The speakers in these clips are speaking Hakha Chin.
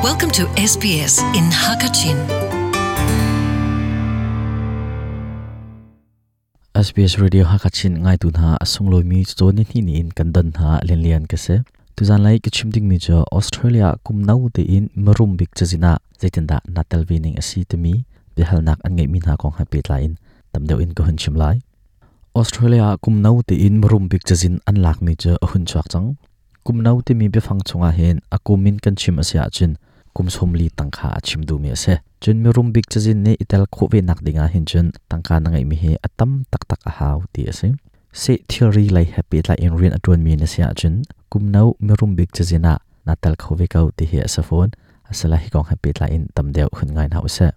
Welcome to SBS in Hakachin. SBS Radio Hakachin ngaitu hna a sunglawi mi ni hni in kan don hna lianlian ka si. Tuzan lai ka chim ding mi cu Australia kum no tein marum bik cazin ah zeitindah na tel ve ning a si timi biahalnak an ngeihmi hna kong he pehtlai in tam deuh in ka hun chim lai. Australia kum no tein marum bik cazin an lakmi cu a hun chuak cang. Kum no timi biafang chungah hin a kum in kan chim a si ahcun kum 40 tangka a chim duhmi a si. Cun mirum bik cazin nih i tel khawh ve nak dingah hin cun tangka na ngeihmi hi a tam taktak a hau ti a si. Seh thilri lei he pehtlai in rian a ṭuanmi na si ahcun kum no mirum bik cazin ah na tel kho ve ko ti hi a si fawn. Asala hi kong he pehtlai in tam deuh hun ngai hna usih.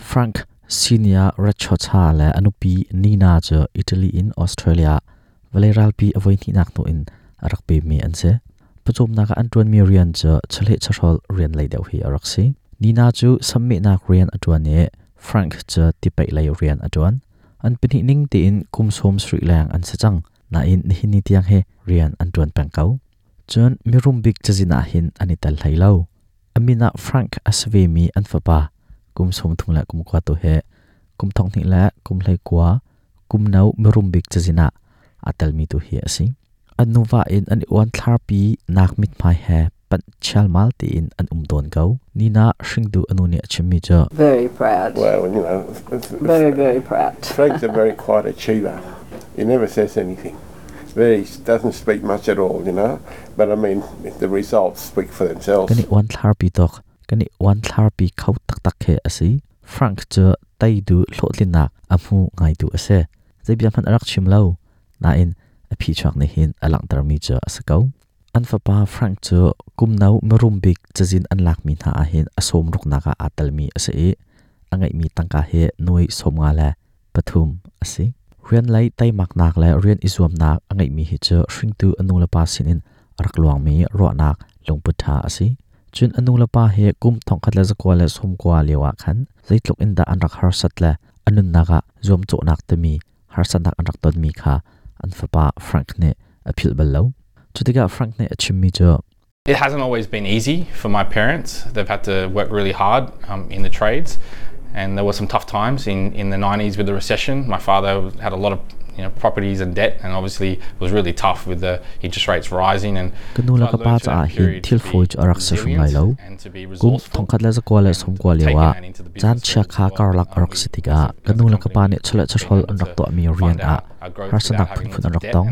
Frank Senior Rachocha le a nupi Nina cu Italy in Australia vawlei ralpi a voihnihnak hnu in a rak pemmi an si. Pawcawmnak ah an ṭuanmi rian cu chawleh chawhrawl rian lei deuh hi a rak si. Nina cu sammehnak rian a ṭuan i Frank cu tipaih lei rian a ṭuan. An pahnih ning tein kum 70 leng an si cang. Nain nihin ni tiang hi rian an ṭuan peng ko. Cun mirum bik cazin ah hin an i tel hlei lo. A min ah Frank a si vemi an fapa kum 39 tu hi kum 2019 kum no mirum bik cazin ah aa telmi tu hi a si. An nuva in an i uanthlarpi nak mithmai he panh chialmal tein an um tawn ko. Nina hringtu a nu nih a chimmi cu Very proud. Well, Very, very proud. Frank's a very quiet achiever. He never says anything. Very doesn't speak much at all. But I mean, the results speak for themselves. Kan i uanthlarpi tuk. Kan i uanthlarpi kho taktak khi a si. Frank cu teidu hlawhtlinnak a hmu ngaitu a si. Zei bia hmanh a rak chim lo. Nain a phichuak nih hin a langhtermi cu a si ko. An fapa Frank cu kum no mirum bik cazin an lakmi hna ah hin a sawm ruknak ah aa telmi a si i a ngeihmi tangka hi nuai 53 a si. Rian lei teimaknak le rian i zuamnak a ngeihmi hi cu hringtu a nulepa sinin a rak luangmi ruahnak lungput ṭha a si. Cun a nulepa hi kum 1990 lio ah khan zeitluk in dah an rak harsat le a nunnak ah zuamcawhnak timi harsatnak an rak tonmi kha an fapa Frank nih a philh bal lo. Cutikah Frank nih a chimmi cu It hasn't always been easy for my parents. They've had to work really hard in the trades, and there were some tough times in the 90s with the recession. My father had a lot of properties and debt, and obviously it was really tough with the interest rates rising. And Ka nu le ka pa caah hin thil fawi cu a rak si hrim lai lo. Kum 1990 lio ah caan chiakha karlak a rak si tikah ka nu le ka pa nih chawleh chawhrawl an rak tuahmi rian ah harsatnak phunphun an rak tong.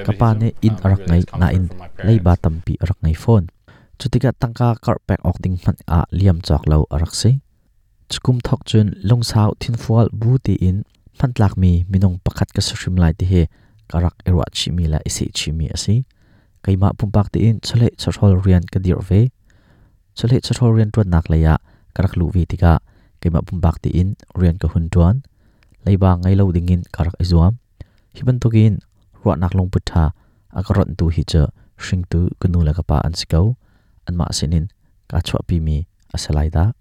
Ka pa nih inn a rak ngei nain leiba tampi a rak ngei fawn. Cutikah tangka karh pek awk ding hmanh ah liam cawk lo a rak si. Cukum thawk cun lungsau thinfual bu tiin hmantlakmi minung pakhat ka si hrim lai ti hi ka rak i ruah chihmi le i seh chihmi a si. Keimah pumpak tein chawleh chawhrawl rian ka dirh ve. Chawleh chawhrawl rianṭuannak lei ah ka rak luh ve tikah keimah pumpak tein rian ka hun ṭuan. Leiba ngei lo dingin ka rak i zuam. Hi bantukin ruahnak lungput ṭha a ka ronhtu hi cu hringtu ka nu le ka pa an si ko. Anmah sinin kaa chuahpimi a si lai dah.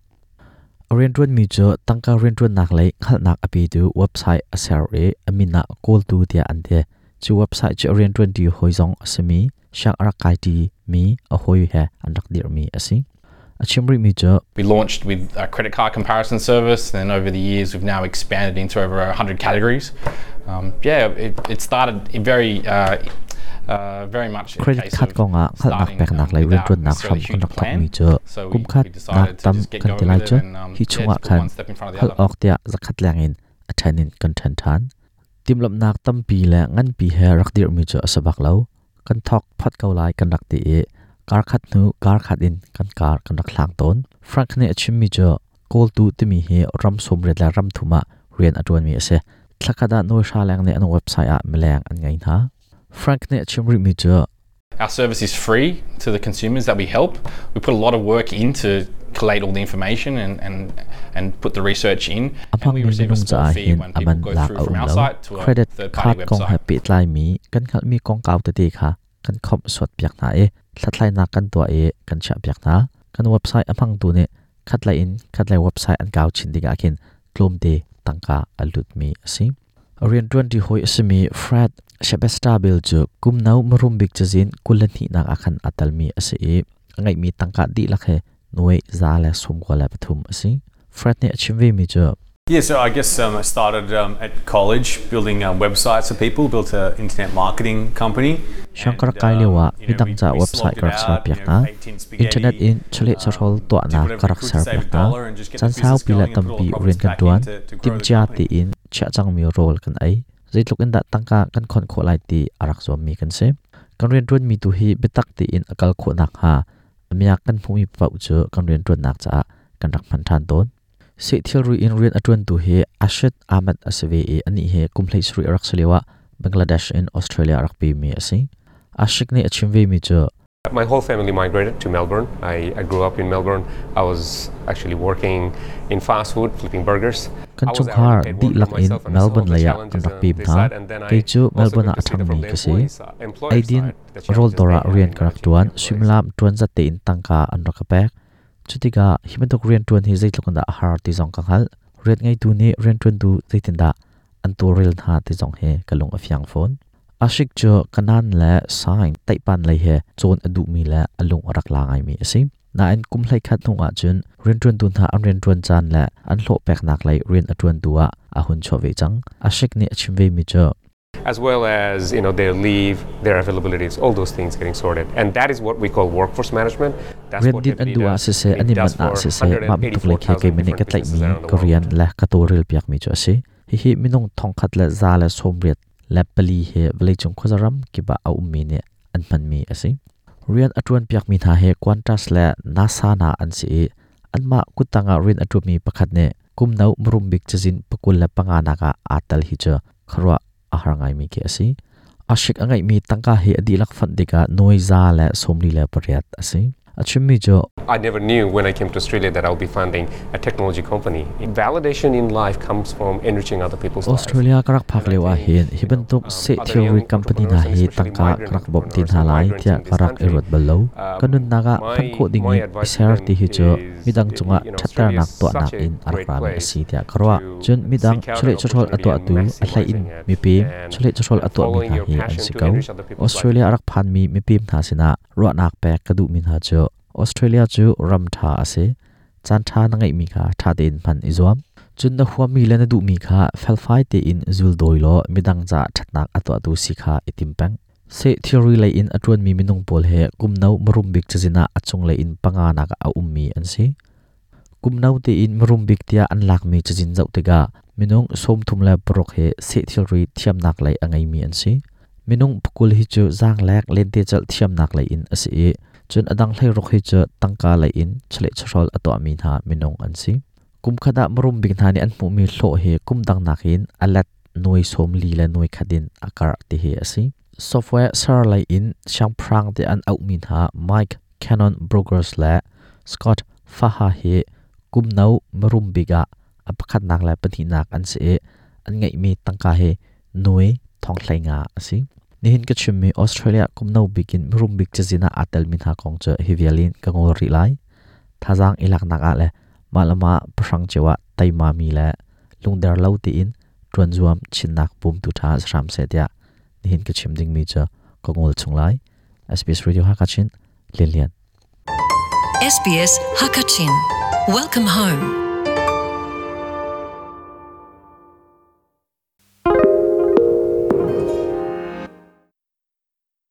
A rianṭuanmi cu tangka rianṭuannak lei hngalhnak a petu website a ser i a min ah kawltu tiah an ti. Cu website cu a rianṭuanṭi hawi zong a simi siang a rak kaiṭi mi a hawi he an rak dirhmi a si. A chim rihmi cu We launched with a credit card comparison service, and then over the years we've now expanded into over 100 categories. Yeah, it started very much Credit card kongah hngalhnak peknak lei rianṭuannak hram kan rak thawkmi cu kumkhat nak tam kan ti lai cu hi chungah khan hal awk tiah zakhat leng in a ṭhen in kan ṭhen ṭhan. Timhlamhnak tampi le nganpi he rak dirhmi cu a si bak lo. Kan thawk phot ko lai kan rak ti i karkhat hnu karkhat in kan kar kan rak hlang tawn. Frank nih a chimmi cu kawltu timi hi ram 80 le ram thum ah rian a ṭuanmi a si. Thlakhat ah nuai hra leng nih an website ah mileng an ngei hna. Frank nih a chim rihmi cu Our service is free to the consumers that we help. We put a lot of work in to collate all the information and put the research in. A hmangmi minung caah hin a man lak a um lo. Credit card kong he pehtlaimi kan hngalhmi kongkau tete kha kan khawmh suatpiak hna i hlathlainak kan tuah i kan chiahpiak hna. Kan website a hmangtu nih Khatlei in khatlei website an kau chin tikah khin tlawmte tangka a lutmi a si. Rianṭuanṭi hawi a simi Fred Shebestabil cu kum no mirum bik cazin 22nak ah khan aa telmi a si i a ngeihmi tangka dihlak he nuai 193 a si. Fred nih a chim vemi cu Yeah, so I guess I started at college building websites for people, built an internet marketing company. Siang ka rak kai lio ah midang ca website ka rak serpiak hna. Internet in chawleh chawhrawl tuahnak ka rak serpiak hna. Caan saupi le tampi rian kan ṭuan. Timhcia tein chiah cangmi rawl kan ei. Zeitluk in dah tangka kan khon khawh lai ti a rak zuammi kan si. Kan rianṭuanmi tu hi biatak tein a kal khawh nakhnga a miak kan hmuhmi paoh cu kan rianṭuannak caah kan rak hman ṭhan tawn. Seh thilri in rian a ṭuantu hi Ashit Ahmed a si ve i anih hi kum 17 a rak si lioah Bangladesh in Australia a rak pemi a si. Ashik nih a chim vemi cu My whole family migrated to Melbourne. I grew up in Melbourne. I was actually working in fast food, flipping burgers. Kan chungkhar dihlak in Melbourne lei ah kan rak pem hna. Kei cu Melbourne ah a ṭhangmi ka si. Eidin rawldawr ah rian ka rak ṭuan. Suimilam ṭuan zat tein tangka an rak ka pek. Cutikah hi bantuk rianṭuan hi zeitluk in dah a har ti zong ka hngalh. Rian ngeitu nih rianṭuantu zeitindah an tawlrel hna ti zong hi ka lung a fiang fawn. Ashik cu kanan le sign taihpan lei he cawn a duhmi le a lung a rak la ngaimi a si. Nain kum 11 hnu ahcun rianṭuantu hna an rianṭuan caan le an hlawh peknak lei rian a ṭuantu ah a hun chuah ve cang. Ashik nih a chim vemi cu As well as their leave, their availabilities, all those things getting sorted. And that is what we call workforce management. That's Rian din an duh ah siseh, an i manh ah siseh, mah bantuk lei khi keimah nih ka tlaihmi ka rian le ka tawlrel piakmi cu a si. Hihi minung 1184 hi vawleicung khuazaram kip ah a ummi nih an hmanmi a si. Rian a ṭuan piakmi hna hi Qantas le NASA hna an si i anmah kuttang ah rian a ṭuanmi pakhat nih kum no mirum bik cazin 25 nak ah aa tel hi cu khuaruah a har ngaimi khi a si. Ashik a ngeihmi tangka hi a dihlak fonh tikah nuai 148 a si. A chimmi cu I never knew when I came to Australia that I'll be funding a technology company. Validation in life comes from enriching other people's lives. Australia ka rak phak lio ah hin hi bantuk seh thilri company hna hi tangka ka rak bawmh te hna lai tiah ka rak i ruat bal lo. Ka nunnak ah hman khawh ding in i ser ti hi cu midang cungah ṭhatternak tuahnak in a rak rami a si tiah ka ruah. Cun midang chawleh chawhrawl a tuahtu a hlei in mipem chawleh chawhrawl a tuahmi hna hi an si ko. Australia a rak phanmi mipem hna sinah ruahnak pek ka duhmi hna cu Australia cu ram ṭha a si. Caan ṭha na ngeihmi kha ṭha tein hman i zuam. Cun na huammi le na duhmi kha felfai tein zul dawi law midang caah ṭhatnak a tuahtu si kha i tim peng. Seh thilri lei in a ṭuanmi minung pawl he kum no mirum bik cazin ah a cunglei in panga nak ah a ummi an si. Kum no tein mirum bik tiah an lakmi cazin zoh tikah minung 36 hi seh thilri thiamnak lei a ngeimi an si. Minung 20 hi cu zaanglek lentecelh thiamnak lei in a si i cun a dang 16 hi cu tangka lei in chawleh chawhrawl a tuahmi hna minung an si. Kum khat ah mirum bik hna nih an hmuhmi hlawh hi kum dang nakin a let nuai 40 le nuai khat in a karh ti hi a si. Software ser lei in siangpahrang tiah an auhmi hna Mike Cannon Brokers le Scott Faha hi kum no mirum bik ah a pakhatnak le pahnihnak an si i an ngeihmi tangka hi nuai 15,000 a si. Nihin ka chimmi Australia kum no bik in mirum bik cazin ah aa telmi hna kong cu hi vial in ka ngol rih lai. Thazaang i laknak ah le mah le mah pahrang cio ah teimami le lungder lo tiin ṭuan zuam chinnak bawmtu ṭha si hram seh tiah nihin ka chim dingmi cu ka ngol chung lai. SBS Radio Hakachin Lian Lian. SBS Hakachin. Welcome home.